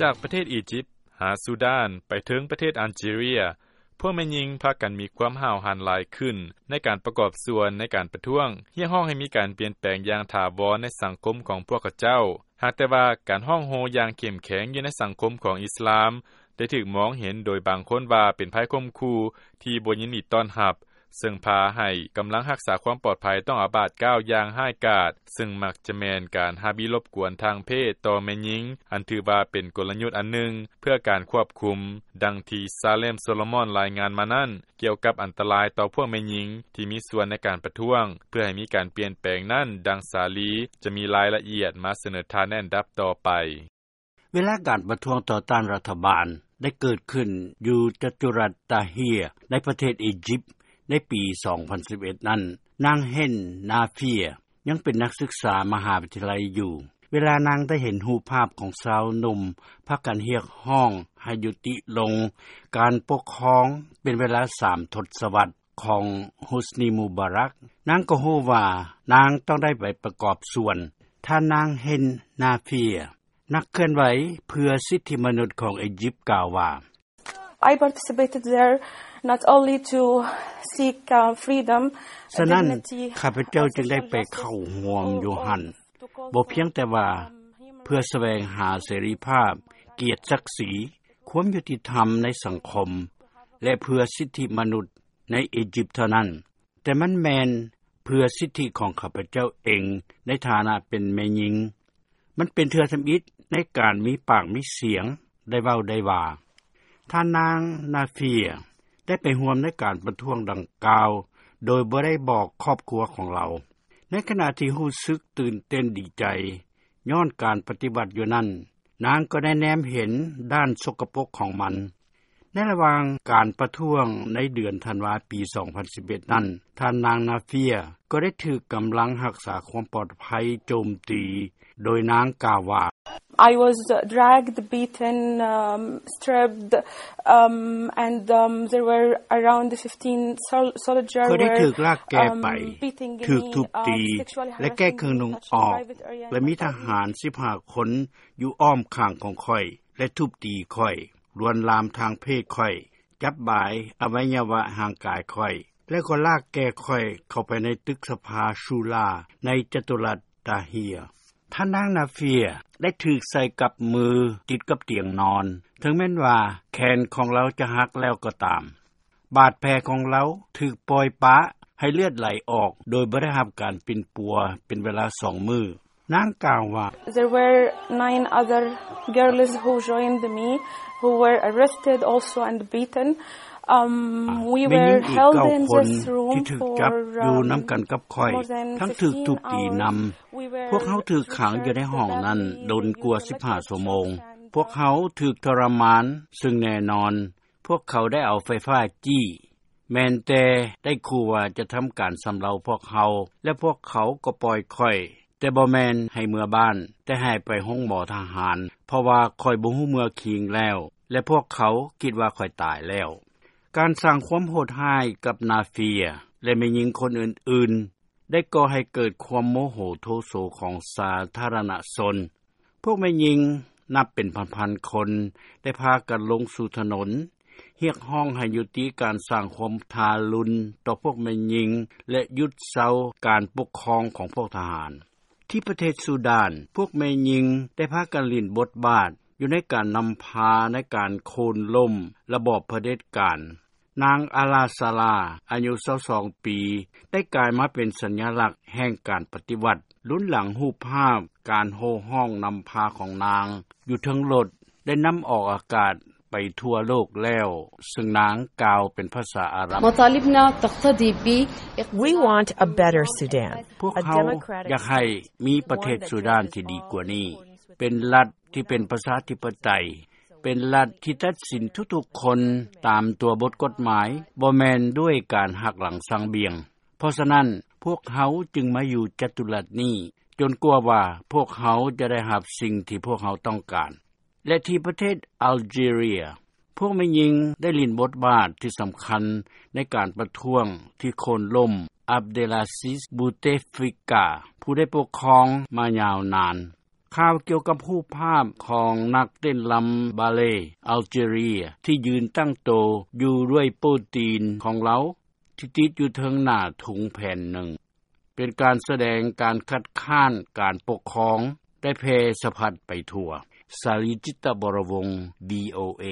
ຈາກປະເທດອີຢິບ ຫາຊູດານ ໄປເຖິງປະເທດອາເຈເຣຍ ພວກແມ່ຍິງພາກັນມີຄວາມຫ້າວຫັນຫຼາຍຂຶ້ນ ໃນການປະກອບສ່ວນໃນການປະທ້ວງ ຮຽກຮ້ອງໃຫ້ມີການປ່ຽນແປງຢ່າງຖາວອນໃນສັງຄົມຂອງພວກເຂົາເຈົ້າ. ຫາກແຕ່ວ່າການຮ້ອງໂຮຢ່າງເຂັ້ມແຂງຢູ່ໃນສັງຄົມຂອງອິສລາມ ໄດ້ຖືກມອງເຫັນໂດຍບາງຄົນວ່າເປັນໄພຂົ່ມຂູ່ທີ່ບໍ່ຍິນດີຕ້ອນຮັບ ເຊິ່ງພາໃຫ້ກຳລັງຮັກສາຄວາມປອດໄພຕ້ອງອາບາດກ້າວຢ່າງຮ້າຍກາດ ເຊິ່ງມັກຈະແມ່ນການຮັບອິດລົບກວນທາງເພດຕໍ່ແມ່ຍິງ ອັນຖືວ່າເປັນກົນລະຍຸດອັນໜຶ່ງເພື່ອການຄວບຄຸມ. ດັ່ງທີ່ Salem Solomon ລາຍງານມານັ້ນ ກ່ຽວກັບອັນຕະລາຍຕໍ່ພວກແມ່ຍິງທີ່ມີສ່ວນໃນການປະທ້ວງ ເພື່ອໃຫ້ມີການປ່ຽນແປງນັ້ນ, ດັ່ງ Sally ຈະມີລາຍລະອຽດມາສະເໜີທ່ານໃນອັນດັບຕໍ່ໄປ. ເວລາການປະທ້ວງຕໍ່ຕ້ານລັດຖະບານໄດ້ເກີດຂຶ້ນຢູ່ຈະຕຸລັດຕາເຮຍ ໃນປະເທດອີຢິບ ໃນປີສອງພັນສິບເອັດນັ້ນ, ນາງ ເຮນ ນາເຟຍ ຍັງເປັນນັກສຶກສາມະຫາວິທະຍາໄລຢູ່. ເວລານາງໄດ້ເຫັນຮູບພາບຂອງຊາວໜຸ່ມພາກັນຮຽກຮ້ອງໃຫ້ຍຸຕິລົງການປົກຄອງເປັນເວລາສາມທົດສະວັດຂອງ Hosni Mubarak, ນາງກໍຮູ້ວ່ານາງຕ້ອງໄດ້ໄປປະກອບສ່ວນ. ທ່ານນາງ ເຮນ ນາເຟຍ ນັກເຄື່ອນໄຫວເພື່ອສິດທິມະນຸດຂອງອີຢິບ ກ່າວວ່າ: I participated there not only to seek, uh, freedom, ສະນັ້ນ dignity, ຂ້າພະເຈົ້າຈຶ່ງໄດ້ໄປເຂົ້າຮ່ວມຢູ່ຫັ້ນ ບໍ່ພຽງແຕ່ວ່າເພື່ອສະແຫວງຫາເສລີພາບ, ກຽດສັກສີ, ຄວາມຍຸຕິທຳໃນສັງຄົມ ແລະ ເພື່ອສິດທິມະນຸດໃນອີຢິບເທົ່ານັ້ນ, ແຕ່ມັນແມ່ນເພື່ອສິດທິຂອງຂ້າພະເຈົ້າເອງໃນຖານະເປັນແມ່ຍິງ. ມັນເປັນເທື່ອທຳອິດໃນການມີປາກມີສຽງ ໄດ້ເວົ້າໄດ້ວ່າ. ທ່ານນາງ ນາເຟຍ ໄດ້ໄປຮ່ວມໃນການປະທ້ວງດັ່ງກ່າວ ໂດຍບໍ່ໄດ້ບອກຄອບຄົວຂອງລາວ. ໃນຂະນະທີ່ຮູ້ສຶກຕື່ນເຕັ້ນດີໃຈຍ້ອນການປະຕິວັດຢູ່ນັ້ນ, ນາງກໍໄດ້ແນມເຫັນດ້ານສົກກະປົກຂອງມັນ. ໃນລະຫວ່າງການປະທ້ວງໃນເດືອນທັນວາປີສອງພັນສິບເອັດນັ້ນ, ທ່ານນາງ ນາເຟຍ ກໍໄດ້ຖືກກຳລັງຮັກສາຄວາມປອດໄພໂຈມຕີ, ໂດຍນາງກ່າວວ່າ: I was dragged, beaten, um, stripped, um, and, um, there were around fifteen sol-, soldier ຂ້ອຍໄດ້ຖືກລາກແກ່ໄປ, ຖືກທຸບຕີ ແລະ ແກ້ເຄື່ອງນຸ່ງອອກ ແລະ ມີທະຫານສິບຫ້າຄົນຢູ່ອ້ອມຂ້າງຂອງຂ້ອຍ ແລະ ທຸບຕີຂ້ອຍ, ລວນລາມທາງເພດຂ້ອຍ, ຈັບບາຍອະໄວຍະວະຮ່າງກາຍຂ້ອຍ ແລະ ກໍລາກແກ່ຂ້ອຍເຂົ້າໄປໃນຕຶກສະພາຊູລາໃນຈະຕຸລັດຕາເຮຍ. ທ່ານນາງ ນາເຟຍ ໄດ້ຖືກໃສ່ກັບມືຕິດກັບຕຽງນອນ, ເຖິງແມ່ນວ່າແຂນຂອງລາວຈະຫັກແລ້ວກໍຕາມ. ບາດແຜຂອງລາວຖືກປ່ອຍປະໃຫ້ເລືອດໄຫຼອອກໂດຍບໍ່ໄດ້ຮັບການປິ່ນປົວເປັນເວລາສອງມື້. ນາງກ່າວວ່າ: There were nine other girls who joined me, who were arrested also and beaten. Um, we were held in this room for, um, more than fifteen hours. ແມ່ຍິງອີກເກົ້າຄົນທີ່ຖືກຈັບຢູ່ນຳກັນກັບຂ້ອຍ ທັງຖືກທຸບຕີນຳ. ພວກເຮົາຖືກຂັງຢູ່ໃນຫ້ອງນັ້ນດົນກວ່າສິບຫ້າຊົ່ວໂມງ. ພວກເຮົາຖືກທໍລະມານ, ເຊິ່ງແນ່ນອນ ພວກເຂົາໄດ້ເອົາໄຟຟ້າຈີ້. ແມ່ນແຕ່ໄດ້ຂູ່ວ່າຈະທຳການຊຳເລົາພວກເຮົາ ແລະ ພວກເຂົາກໍປ່ອຍຂ້ອຍ, ແຕ່ບໍ່ແມ່ນໃຫ້ເມືອບ້ານ, ແຕ່ໃຫ້ໄປໂຮງໝໍທະຫານ, ເພາະວ່າຂ້ອຍບໍ່ຮູ້ເມືອຄີງແລ້ວ ແລະ ພວກເຂົາຄິດວ່າຂ້ອຍຕາຍແລ້ວ. ການສ້າງຄວາມໂຫດຮ້າຍກັບນາເຟຍ ແລະ ແມ່ຍິງຄົນອື່ນໆ ໄດ້ກໍ່ໃຫ້ເກີດຄວາມໂມໂຫໂທໂສຂອງສາທາລະນະຊົນ. ພວກແມ່ຍິງນັບເປັນພັນໆຄົນ ໄດ້ພາກັນລົງສູ່ຖະໜົນ ຮຽກຮ້ອງໃຫ້ຍຸຕິການສ້າງຄວາມທາລຸນຕໍ່ພວກແມ່ຍິງ ແລະ ຢຸດເຊົາການປົກຄອງຂອງພວກທະຫານ. ທີ່ປະເທດຊູດານ, ພວກແມ່ຍິງໄດ້ພາກັນຫຼິ້ນບົດບາດຢູ່ໃນການນຳພາໃນການໂຄ່ນລົ້ມລະບອບຜະເດັດການ. ນາງ ອາລາ ຊາລາ ອາຍຸຊາວສອງປີ ໄດ້ກາຍມາເປັນສັນຍະລັກແຫ່ງການປະຕິວັດ, ລຸນຫຼັງຮູບພາບການໂຫ່ຮ້ອງນຳພາຂອງນາງຢູ່ເທິງລົດ ໄດ້ນຳອອກອາກາດໄປທົ່ວໂລກແລ້ວ, ເຊິ່ງນາງກ່າວເປັນພາສາອາຣັບ. مطالبنا تقتضي ب We want a better Sudan, ພວກເຮົາຢາກໃຫ້ມີປະເທດຊູດານທີ່ດີກວ່ານີ້, ເປັນລັດທີ່ເປັນປະຊາທິປະໄຕ, ເປັນລັດທີ່ຕັດສິນທຸກໆຄົນຕາມຕົວບົດກົດໝາຍ, ບໍ່ແມ່ນດ້ວຍການຫັກຫຼັງສັງບຽງ. ເພາະສະນັ້ນ, ພວກເຮົາຈຶ່ງມາຢູ່ຈະຕຸລັດນີ້, ຈົນກວ່າວ່າພວກເຮົາຈະໄດ້ຮັບສິ່ງທີ່ພວກເຮົາຕ້ອງການ. ແລະ ທີ່ປະເທດອາເຈເຣຍ, ພວກແມ່ຍິງໄດ້ຫຼິ້ນບົດບາດທີ່ສຳຄັນໃນການປະທ້ວງທີ່ໂຄ່ນລົ້ມ ອັບເດລາຊິດ ບູເຕຟິກາ ຜູ້ໄດ້ປົກຄອງມາຍາວນານ. ຂ່າວກ່ຽວກັບຮູບພາບຂອງນັກເຕັ້ນລຳບາເລ ອາເຈເຣຍ ທີ່ຢືນຕັ້ງໂຕຢູ່ດ້ວຍໂປ້ຕີນຂອງລາວ ທີ່ຕິດຢູ່ເທິງໜ້າທຸງແຜ່ນໜຶ່ງ ເປັນການສະແດງການຄັດຄ້ານການປົກຄອງ ໄດ້ແຜ່ສະພັດໄປທົ່ວ. ສາລີ ຈິດຕະວໍລະວົງ ວີໂອເອ